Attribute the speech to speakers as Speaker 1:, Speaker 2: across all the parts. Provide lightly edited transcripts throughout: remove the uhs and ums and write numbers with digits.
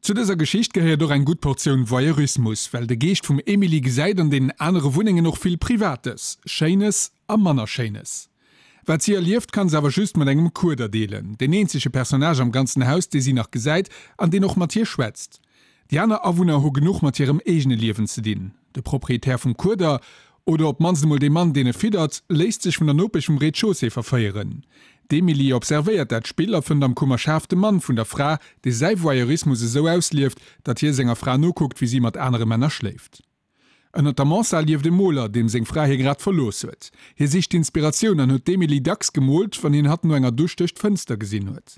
Speaker 1: Zu dëser Geschicht gehéiert och eng gutt Portioun Voyeurismus, well de Geescht vum Emily gesäit an deenen anere Wunnengen och vill Privates, Schéines a manner Schéines. Wat si erlieft, kann se awer just mat engem Kueder deelen, deen eenzege Personnage am ganzen Haus, dee si nach gesäit an deen och mat hir schwätzt. Déi aner Awunner hu genuch mat hirem eegene Liewen ze dinn. De Proprietär vum Kueder, oder op d'mannst emol dee Mann, deen e fiddert, léisst sech vun der Nopesch vum Rez-de-chaussée verféieren. D'Emily observéiert dat Spill a fënnt am Kummer schaarf de Mann vun der Fra, dee säi Voyeurismus esou auslieft, datt hie senger Fra nokuckt, wéi si mat anere Männer schléift. Ënnert der Mansard lieft e Moler, deem seng Fra hie grad verlooss huet. Hie sicht Inspiratioun an huet d'Emily dacks gemoolt, wann hien hatt no enger Dusch duerch d'Fënster gesinn huet.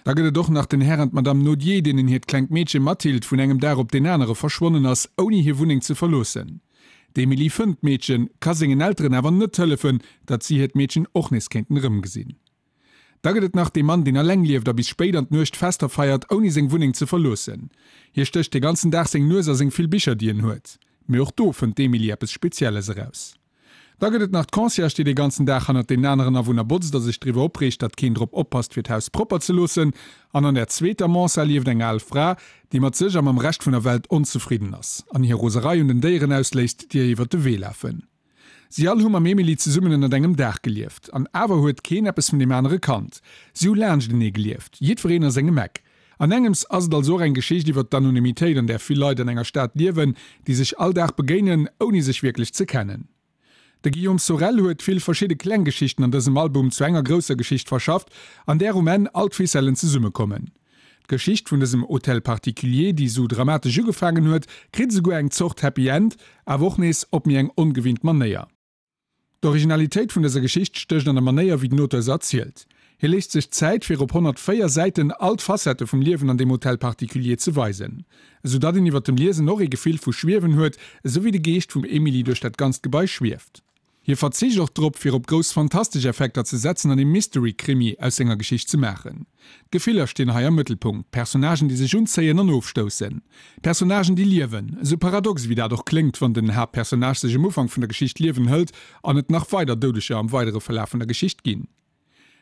Speaker 1: Da gëtt et och nach den Här an d'Madame Nodier, deenen hiert klengt Meedche Mathilde vun engem Dag op deen anere verschwonnen ass, ouni hir Wunneng ze verloossen. D'Emily fënnt d'Meedchen, ka sengen Elteren awer net hëllefen, datt si hiert Meedchen och nees kéinten erëmgesinn. Da gëtt et nach dee Mann, deen alleng lieft a bis spéit an d'Nuecht Fester feiert, ouni seng Wunneng ze verloossen. Hie stécht de ganzen Dag seng Nues a seng vill Bicher, déi en huet. Mee och do fënnt d'Emily eppes Spezielles eraus. Da gëtt et nach d'Concierge, déi de ganzen Dag hannert deenen aneren Awunner botzt a sech driwwer opreegt, datt keen drop oppasst, fir d'Haus propper ze loossen. An an der zweeter Mansard lieft eng al Fra, déi mat sech a mam Rescht vun der Welt onzefridden ass an hir Roserei un den Déieren ausléisst, déi ihr iwwert de Wee lafen. Si all hu mam Emily zesummen ënnert engem Daach gelieft. An awer huet keen eppes vun deem anere kannt. Si hu laanschtenee gelieft, jiddwereen a sengem Eck. An engems ass et also och eng Geschicht iwwer d'Anonymitéit, an där vill Leit an enger Stad liewen, déi sech all Dag begéinen, ouni sech wierklech ze kennen. De Guillaume Sorel huet vill verschidde kleng Geschichten an dësem Album zu enger grousser Geschicht verschafft, an där um Enn all d'Ficellen zesummekommen. D'Geschicht vun dësem Hôtel particulier, déi sou dramatesch ugefaangen huet, kritt esouguer eng Zort Happy End, awer och nees op méi eng ongewinnt Manéier. D'Originalitéit vun dëser Geschicht stécht an der Manéier, wéi den Auteur se erzielt. Hie léisst sech Zäit, fir op 104 Säiten all d'Facettë vum Liewen an deem Hôtel particulier ze weisen, esou datt een iwwer dem Liesen och ee Gefill vu Schwiewen huet, esou wéi de Geescht vum Emily duerch dat ganzt Gebai schwieft. Hie verzicht och drop, fir op grouss fantastesch Effekter ze setzen an ee Mystery-Krimi aus senger Geschicht ze maachen. D'Gefiller stinn hei am Mëttelpunkt, Personnagen, déi sech unzéien an ofstoussen. Personnagen, déi liewen. Esou paradox ewéi dat och kléngt, wann den Haaptpersonnage sech um Ufank vun der Geschicht d'Liewen hëlt an et nach weider Doudeger am weidere Verlaf vun der Geschicht ginn.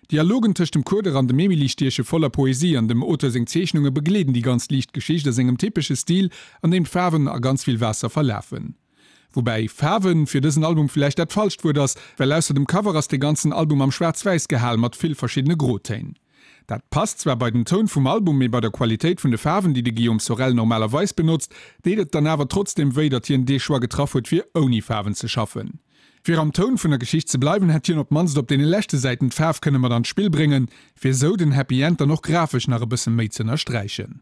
Speaker 1: D'Dialogen tëscht dem Kueder an dem Emily stieche voller Poesie an dem Auteur seng Zeechnunge begleeden déi ganz liicht Geschicht a sengem typesche Stil, an deem d'Faarwen a ganz vill Waasser verlafen. Woubäi Faarwen fir dësen Album villäicht dat falscht Wuert ass, well ausser dem Cover ass de ganzen Album am Schwaarz-Wäiss gehal mat vill verschiddene Grotéin. Dat passt zwar bei den Toun vum Album, mee bei der Qualitéit vun de Faarwen, déi de Guillaume Sorel normalerweis benotzt, deet et dann awer trotzdeem wéi, datt hien dee Choix getraff huet fir ouni Faarwen ze schaffen. Fir am Toun vun der Geschicht ze bleiwen, hätt hien op d'mannst op deene leschte Säiten d'Faarf kënne mat an d'Spill bréngen, fir esou den Happy End dann och grafesch nach e bësse méi z'ënnersträichen.